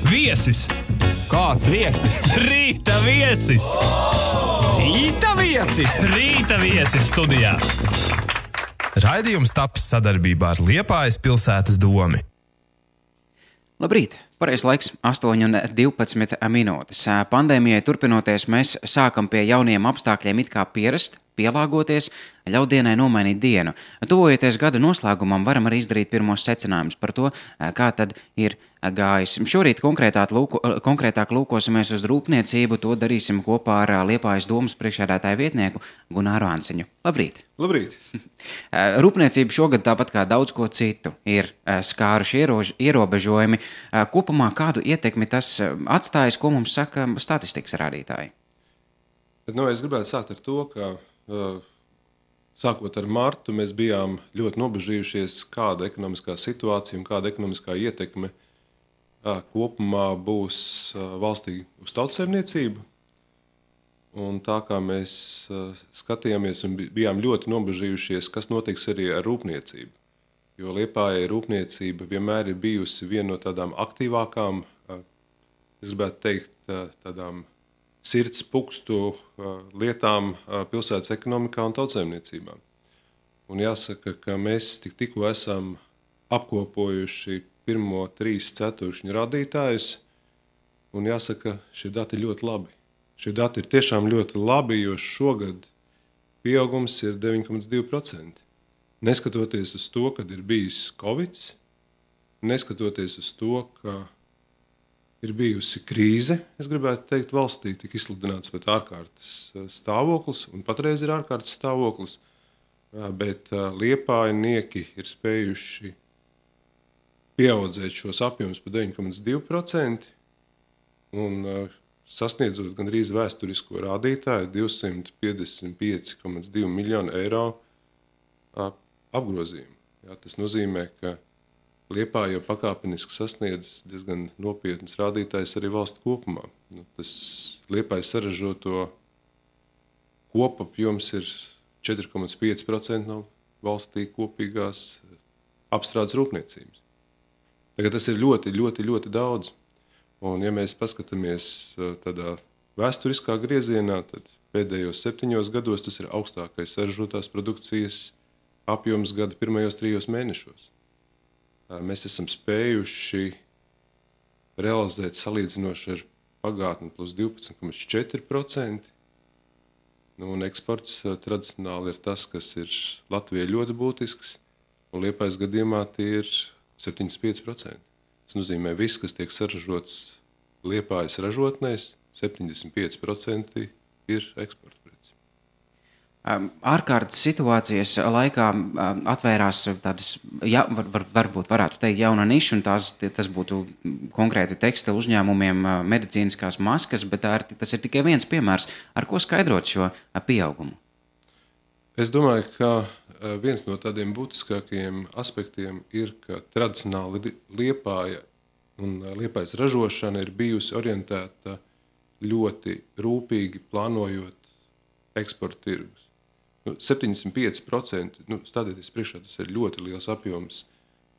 Viesis! Kāds viesis? Rīta viesis! Rīta viesis! Rīta viesis studijā! Raidījums tapis sadarbībā ar Liepājas pilsētas domi. Labrīt! Pareizais laiks 8:12 minūtes. Pandēmijai turpinoties, mēs sākam pie jauniem apstākļiem it kā pierast, pielāgoties, ļaut dienai nomainīt dienu. Tuvojoties gada noslēgumam, varam arī izdarīt pirmos secinājumus par to, kā tad ir gājis. Šorīt konkrētāk lūkosimies uz rūpniecību, to darīsim kopā ar Liepājas domas priekšsēdētāju vietnieku Gunāru Ansiņu. Labrīt! Labrīt! Rūpniecība šogad, tāpat kā daudz ko citu, ir skāruši ierobežojumi. Kopumā kādu ietekmi tas atstājis, ko mums saka statistikas rādītāji? Es gribētu sākt ar to, ka sākot ar martu mēs bijām ļoti nobežījušies, kāda ekonomiskā situācija un kāda ekonomiskā ietekme kopumā būs valstī uz tautsaimniecību. Un tā kā mēs skatījāmies un bijām ļoti nobežījušies, kas notiks arī ar rūpniecību. Jo Liepājai rūpniecība vienmēr ir bijusi viena no tādām aktīvākām, es gribētu teikt, tādām sirds pukstu lietām pilsētas ekonomikā un tautsaimniecībā. Un jāsaka, ka mēs tikko esam apkopojuši pirmo 3 ceturkšņu rādītājus, un jāsaka, šie dati ir ļoti labi. Šie dati ir tiešām ļoti labi, jo šogad pieaugums ir 9,2%. Neskatoties uz to, kad ir bijis Covid, neskatoties uz to, ka ir bijusi krīze, es gribētu teikt, valstī tika izsludināts pat ārkārtas stāvoklis, un patreiz ir ārkārtas stāvoklis, bet liepājnieki ir spējuši pieaudzēt šos apjomus par 9,2% un sasniedzot gandrīz vēsturisko rādītāju 255,2 miljonu eiro apgrozījumu. Tas nozīmē, ka Liepāja jau pakāpeniski sasniedz diezgan nopietnas rādītājs arī valsts kopumā. Tas Liepājas saražoto kopapjoms ir 4,5% no valstī kopīgās apstrādes rūpniecības. Tagad tas ir ļoti, ļoti, ļoti daudz. Un ja mēs paskatāmies tādā vēsturiskā griezienā, tad pēdējos 7 gados tas ir augstākais saražotās produkcijas apjoms gada pirmajos 3 mēnešos. Mēs esam spējuši realizēt salīdzinoši ar pagātni plus 12,4%. Un eksports tradicionāli ir tas, kas ir Latvijai ļoti būtisks, un Liepājas gadījumā tie ir 75%. Tas nozīmē, viss, kas tiek saražots Liepājas ražotnēs, 75% ir eksporta. Ārkārtas situācijas laikā atvērās tādas, varbūt varētu teikt, jauna niša, un tas būtu konkrēti tekstilu uzņēmumiem, medicīniskās maskas, bet tas ir tikai viens piemērs. Ar ko skaidrot šo pieaugumu? Es domāju, ka viens no tādiem būtiskākajiem aspektiem ir, ka tradicionāli Liepāja un Liepājas ražošana ir bijusi orientēta ļoti rūpīgi plānojot eksporta tirgus. 75%, stādieties priekšā, tas ir ļoti liels apjoms.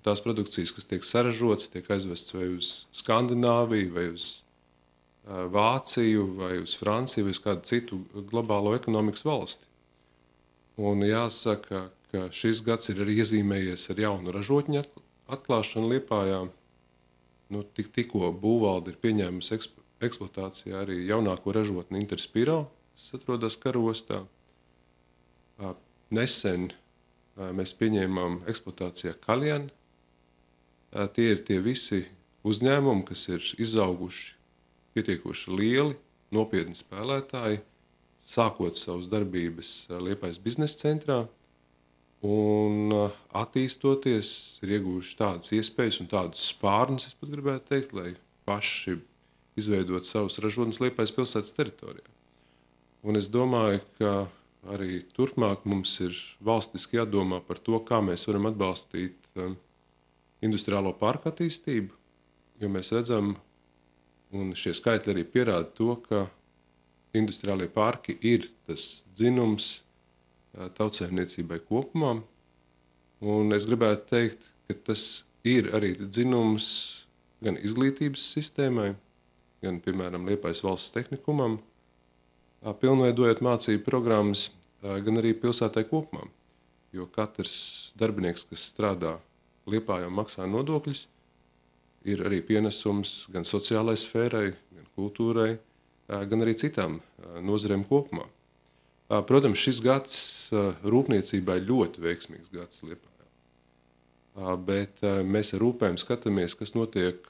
Tās produkcijas, kas tiek saražotas, tiek aizvests vai uz Skandināviju, vai uz Vāciju, vai uz Franciju, vai uz kādu citu globālo ekonomikas valsti. Un jāsaka, ka šis gads ir arī iezīmējies ar jaunu ražotņu atklāšanu Liepājā. Tikko būvvalde ir pieņēmusi eksploatācijā arī jaunāko ražotni Interspiro, kas atrodas Karostā. Nesen mēs pieņēmām eksploatācijā Kaljan. Tie ir tie visi uzņēmumi, kas ir izauguši pietiekoši lieli, nopietni spēlētāji, sākot savas darbības Liepājas biznesa centrā un attīstoties, ir ieguvuši tādas iespējas un tādas spārnus, es pat gribētu teikt, lai paši izveidot savus ražotnes Liepājas pilsētas teritorijā. Un es domāju, ka arī turpmāk mums ir valstiski jādomā par to, kā mēs varam atbalstīt industriālo parku attīstību, jo mēs redzam, un šie skaitļi arī pierāda to, ka industriālie parki ir tas dzinums tautsaimniecībai kopumā. Un es gribētu teikt, ka tas ir arī dzinums gan izglītības sistēmai, gan, piemēram, Liepājas valsts tehnikumam, pilnveidojot mācību programmas, gan arī pilsētai kopumā. Jo katrs darbinieks, kas strādā Liepājā un maksā nodokļus, ir arī pienesums gan sociālai sfērai, gan kultūrai, gan arī citām nozarēm kopumā. Protams, šis gads rūpniecībai ļoti veiksmīgs gads Liepājā. Bet mēs ar rūpēm skatāmies, kas notiek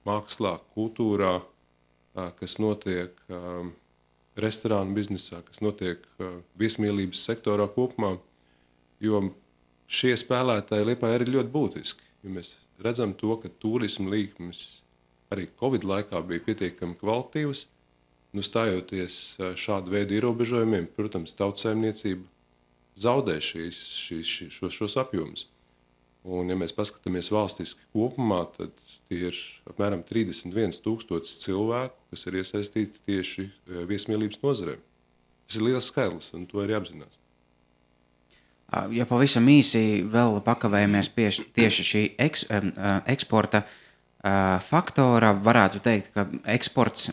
mākslā, kultūrā, kas notiek restorānu biznesā, kas notiek viesmīlības sektorā kopumā, jo šie spēlētāji Liepājā ir ļoti būtiski. Jo mēs redzam to, ka turisma līkmes arī Covid laikā bija pietiekami kvalitīvas. Stājoties šādu veidu ierobežojumiem, protams, tautsaimniecība zaudē šos apjomus. Un, ja mēs paskatāmies valstiski kopumā, tad tie ir apmēram 31,000 cilvēku, kas ir iesaistīti tieši viesmīlības nozarē. Tas ir liels skaitlis, un to ir jāapzinās. Ja pavisam īsi vēl pakavējamies pie tieši šī eksporta faktora, varētu teikt, ka eksports,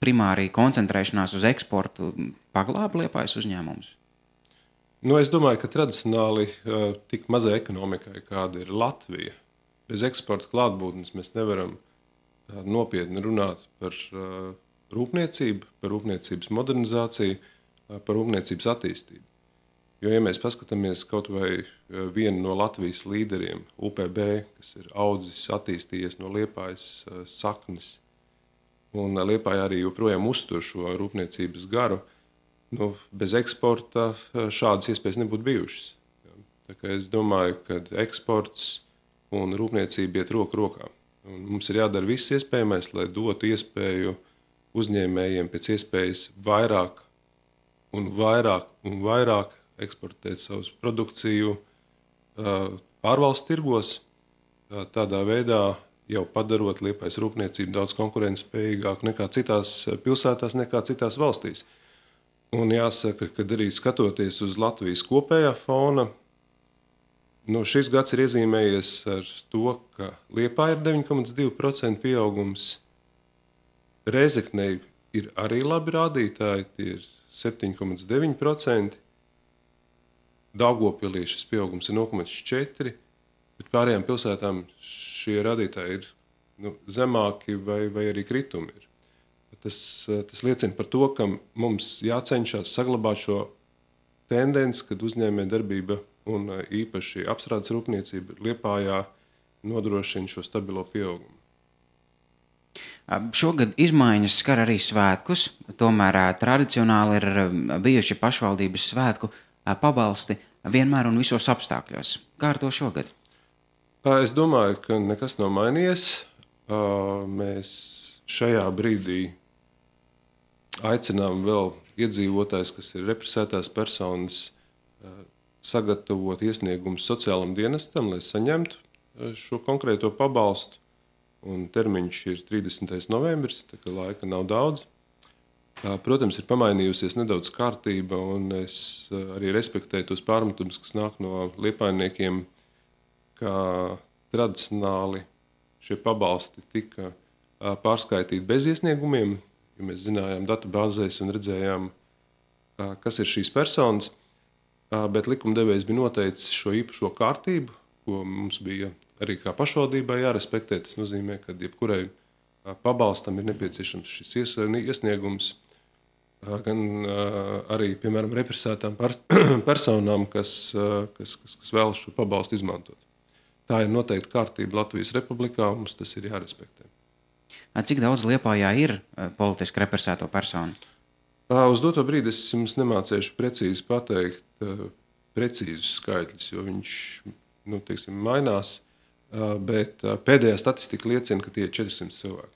primāri koncentrēšanās uz eksportu, paglāba Liepājas uzņēmumus? Es domāju, ka tradicionāli tik mazai ekonomikai, kāda ir Latvija, bez eksporta klātbūtnes mēs nevaram nopietni runāt par rūpniecību, par rūpniecības modernizāciju, par rūpniecības attīstību. Jo, ja mēs paskatāmies kaut vai vienu no Latvijas līderiem, UPB, kas ir audzis, attīstījies no Liepājas saknes, un Liepāja arī joprojām uztur šo rūpniecības garu, bez eksporta šādas iespējas nebūtu bijušas. Tā kā es domāju, ka eksports un rūpniecība iet roku rokā. Un mums ir jādara viss iespējamais, lai dotu iespēju uzņēmējiem pēc iespējas vairāk un vairāk eksportēt savu produkciju ārvalstu tirgos, tādā veidā jau padarot Liepājas rūpniecību daudz konkurētspējīgāku nekā citās pilsētās, nekā citās valstīs. Un jāsaka, ka arī skatoties uz Latvijas kopējā fona, šis gads ir iezīmējies ar to, ka Liepājā ir 9,2% pieaugums, Rēzeknei ir arī labi rādītāji, tie ir 7,9%, Daugavpilī šis pieaugums ir 0,4%, bet pārējām pilsētām šie rādītāji ir zemāki vai arī kritumi ir. Tas liecina par to, ka mums jācenšas saglabāt šo tendenci, kad uzņēmējdarbība un īpaši apstrādes rūpniecība Liepājā nodrošina šo stabilo pieaugumu. Šogad izmaiņas skar arī svētkus, tomēr tradicionāli ir bijuši pašvaldības svētku pabalsti vienmēr un visos apstākļos. Kā ar to šogad? Es domāju, ka nekas nav mainījies. Mēs šajā brīdī aicinām vēl iedzīvotājus, kas ir represētās personas, sagatavot iesniegumus sociālam dienestam, lai saņemtu šo konkrēto pabalstu. Un termiņš ir 30. novembris, tā kā laika nav daudz. Protams, ir pamainījusies nedaudz kārtība, un es arī respektēju tos pārmetumus, kas nāk no liepājniekiem, ka tradicionāli šie pabalsti tika pārskaitīti bez iesniegumiem, jo mēs zinājām datubāzēs un redzējām, kas ir šīs personas, bet likumdevējs bija noteicis šo īpašo kārtību, ko mums bija arī kā pašvaldībai jārespektē. Tas nozīmē, ka jebkurai pabalstam ir nepieciešams šis iesniegums, gan arī, piemēram, represētām personām, kas vēlas šo pabalstu izmantot. Tā ir noteikti kārtība Latvijas Republikā, un mums tas ir jārespektē. Cik daudz Liepājā ir politiski represēto personu? Uz doto brīdi es jums nemācēšu precīzi pateikt precīzus skaitļus, jo viņš mainās, bet pēdējā statistika liecina, ka tie ir 400 cilvēki.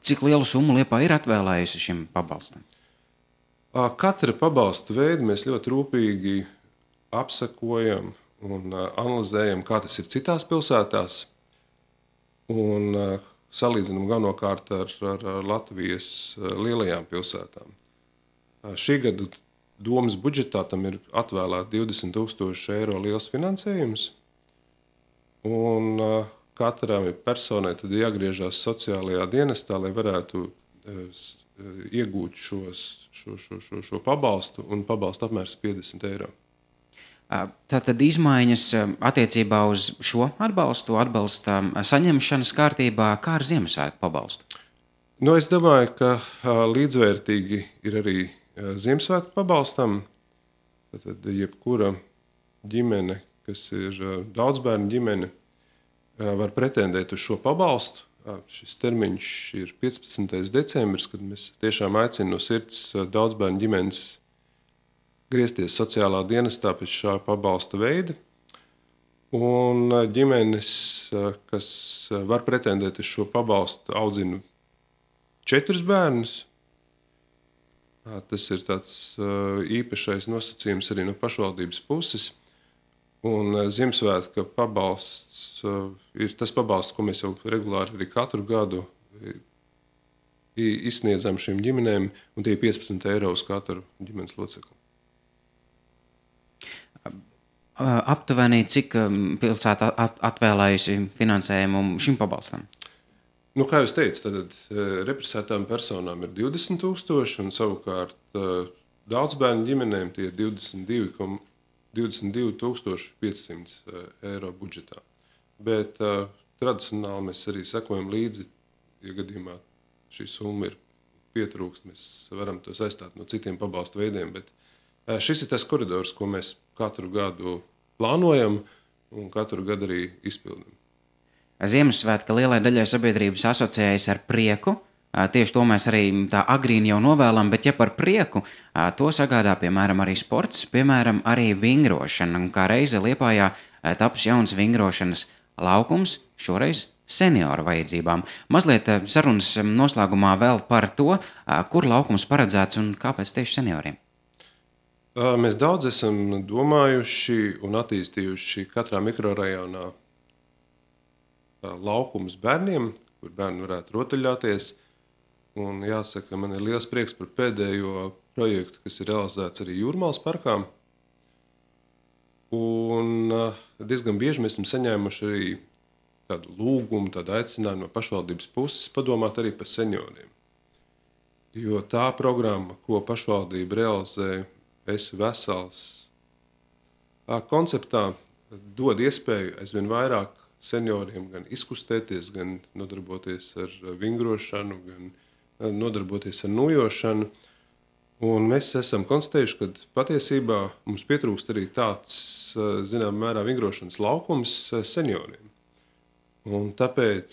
Cik lielu summu Liepāja ir atvēlējusi šim pabalstam? Katra pabalsta veidu mēs ļoti rūpīgi apsekojam un analizējam, kā tas ir citās pilsētās, un salīdzinām galvenokārt ar Latvijas lielajām pilsētām. Šī gada domas budžetā tam ir atvēlēta 20,000 eiro liels finansējums, un katrai personai tad jāgriežās sociālajā dienestā, lai varētu iegūt šo pabalstu, un pabalsta apmērs 50 eiro. Tātad izmaiņas attiecībā uz šo atbalsta saņemšanas kārtībā, kā ar Ziemassvētku pabalstu? Es domāju, ka līdzvērtīgi ir arī Ziemassvētku pabalstam. Tad jebkura ģimene, kas ir daudzbērnu ģimene, var pretendēt uz šo pabalstu. Šis termiņš ir 15. decembris, kad mēs tiešām aicinām no sirds daudzbērnu ģimenes griezties sociālā dienestā pēc šā pabalsta veida. Un ģimenes, kas var pretendēt uz šo pabalstu, audzina 4 bērnus. Tas ir tāds īpašais nosacījums arī no pašvaldības puses. Un Ziemassvētku pabalsts ir tas pabalsts, ko mēs jau regulāri arī katru gadu izsniedzam šīm ģimenēm, un tie ir 15 eiro uz katru ģimenes locekli. Aptuveni, cik pilsēta atvēlējusi finansējumu šim pabalstam? Kā jūs teicat, tad represētām personām ir 20 000, un savukārt daudzbērnu ģimenēm tie ir 22,500 eiro budžetā. Bet tradicionāli mēs arī sekojam līdzi, ja gadījumā šī summa ir pietrūkst, mēs varam to saistāt no citiem pabalstu veidiem. Bet šis ir tas koridors, ko mēs katru gadu plānojam un katru gadu arī izpildam. Ziemassvētka lielai daļai sabiedrības asociējas ar prieku. Tieši to mēs arī tā agrīni jau novēlam, bet ja par prieku, to sagādā, piemēram, arī sports, piemēram, arī vingrošana. Un kā reize Liepājā taps jauns vingrošanas laukums, šoreiz senioru vajadzībām. Mazliet sarunas noslēgumā vēl par to, kur laukums paredzēts un kāpēc tieši senioriem. Mēs daudz esam domājuši un attīstījuši katrā mikrorajonā laukums bērniem, kur bērni varētu rotaļāties. Un jāsaka, man ir liels prieks par pēdējo projektu, kas ir realizēts arī Jūrmālas parkā. Un diezgan bieži mēs esam saņēmuši arī tādu lūgumu, tādu aicinājumu no pašvaldības puses padomāt arī par senioriem. Jo tā programma, ko pašvaldība realizē Esi vesels konceptā, dod iespēju aizvien vairāk senioriem gan izkustēties, gan nodarboties ar vingrošanu, gan nodarboties ar nojošanu. Un mēs esam konstatējuši, ka patiesībā mums pietrūkst arī tāds, zinām, mērā vingrošanas laukums senioriem. Un tāpēc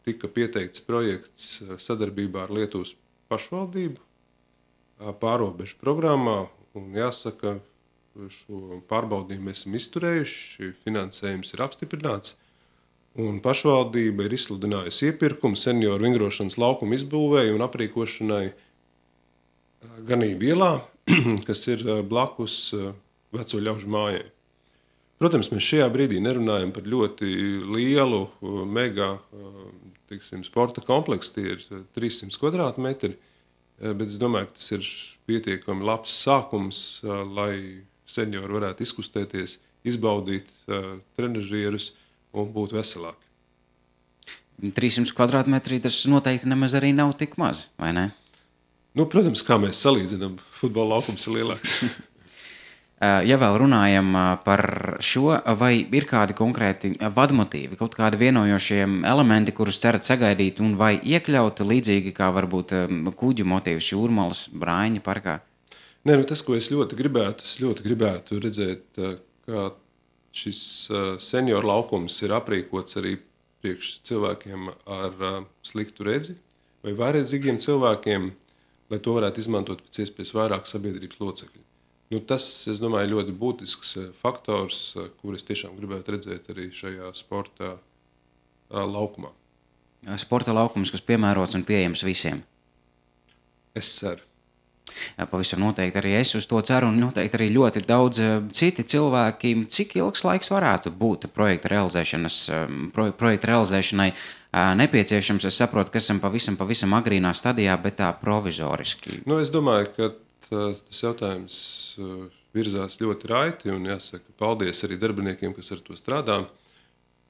tika pieteikts projekts sadarbībā ar Lietuvas pašvaldību pārobežu programmā. Un jāsaka, šo pārbaudījumu mēs esam izturējuši, finansējums ir apstiprināts. Un pašvaldība ir izsludinājusi iepirkumu senioru vingrošanas laukumu izbūvēi un aprīkošanai Ganību ielā, kas ir blakus veco ļaužu mājai. Protams, mēs šajā brīdī nerunājam par ļoti lielu, mega sporta kompleksu, tie ir 300 kvadrātmetri, bet es domāju, ka tas ir pietiekami labs sākums, lai seniori varētu izkustēties, izbaudīt trenažierus un būt veselāki. 300 kvadrātmetri tas noteikti nemaz arī nav tik maz, vai ne? Protams, kā mēs salīdzinām, futbola laukums ir lielāks. Ja vēl runājam par šo, vai ir kādi konkrēti vadmotīvi, kaut kādi vienojošie elementi, kurus cerat sagaidīt un vai iekļaut līdzīgi kā varbūt kuģu motīvs Jūrmalas Brāņa parkā? Tas, ko es ļoti gribētu redzēt, ka šis senioru laukums ir aprīkots arī priekš cilvēkiem ar sliktu redzi vai vājredzīgiem cilvēkiem, lai to varētu izmantot pēc iespējas vairāk sabiedrības locekļu. Tas, es domāju, ļoti būtisks faktors, kur es tiešām gribētu redzēt arī šajā sporta laukumā. Sporta laukums, kas piemērots un pieejams visiem. Es ceru. Pavisam noteikti arī es uz to ceru un noteikti arī ļoti daudz citi cilvēki. Cik ilgs laiks varētu būt projekta realizēšanai nepieciešams? Es saprotu, ka esam pavisam agrīnā stadijā, bet tā provizoriski. Es domāju, ka tas jautājums virzās ļoti raiti un jāsaka paldies arī darbiniekiem, kas ar to strādā.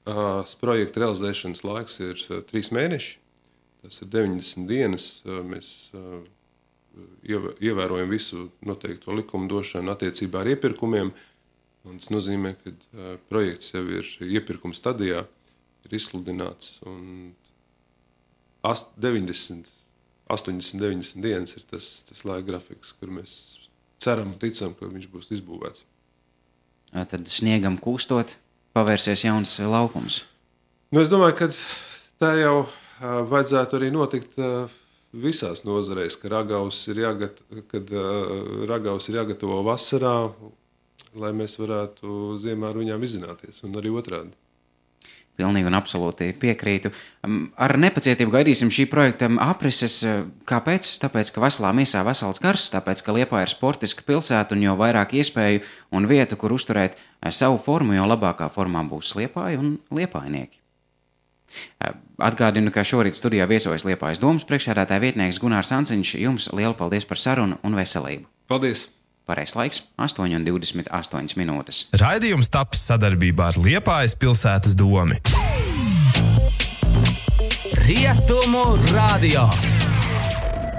projekta realizēšanas laiks ir 3 mēneši. Tas ir 90 dienas. Mēs ievērojam visu noteikto likumdošanu attiecībā ar iepirkumiem. Un tas nozīmē, ka projekts jau ir iepirkuma stadijā, ir izsludināts. Un 80, 90 dienas ir tas laika grafiks, kur mēs ceram un ticam, ka viņš būs izbūvēts. Tad sniegam kūstot, pavērsies jauns laukums. Es domāju, ka tā jau vajadzētu arī notikt visās nozareis, ka ragaus ir jāgatavo vasarā, lai mēs varētu ziemā ar viņām izzināties, un arī otrādi. Pilnīgi un absolūti piekrītu. Ar nepacietību gaidīsim šī projekta aprises. Kāpēc? Tāpēc, ka veselā miesā vesels gars, tāpēc, ka Liepāja ir sportiska pilsēta un jo vairāk iespēju un vietu, kur uzturēt savu formu, jo labākā formā būs Liepāja un liepājnieki. Atgādinu, ka šorīt studijā viesojas Liepājas domas priekšsēdētāja vietnieks Gunārs Anciņš. Jums lielu paldies par sarunu un veselību. Paldies! Pareizs laiks - 8:28 minūtes. Raidījums tapis sadarbībā ar Liepājas pilsētas domi. Rietumu radio.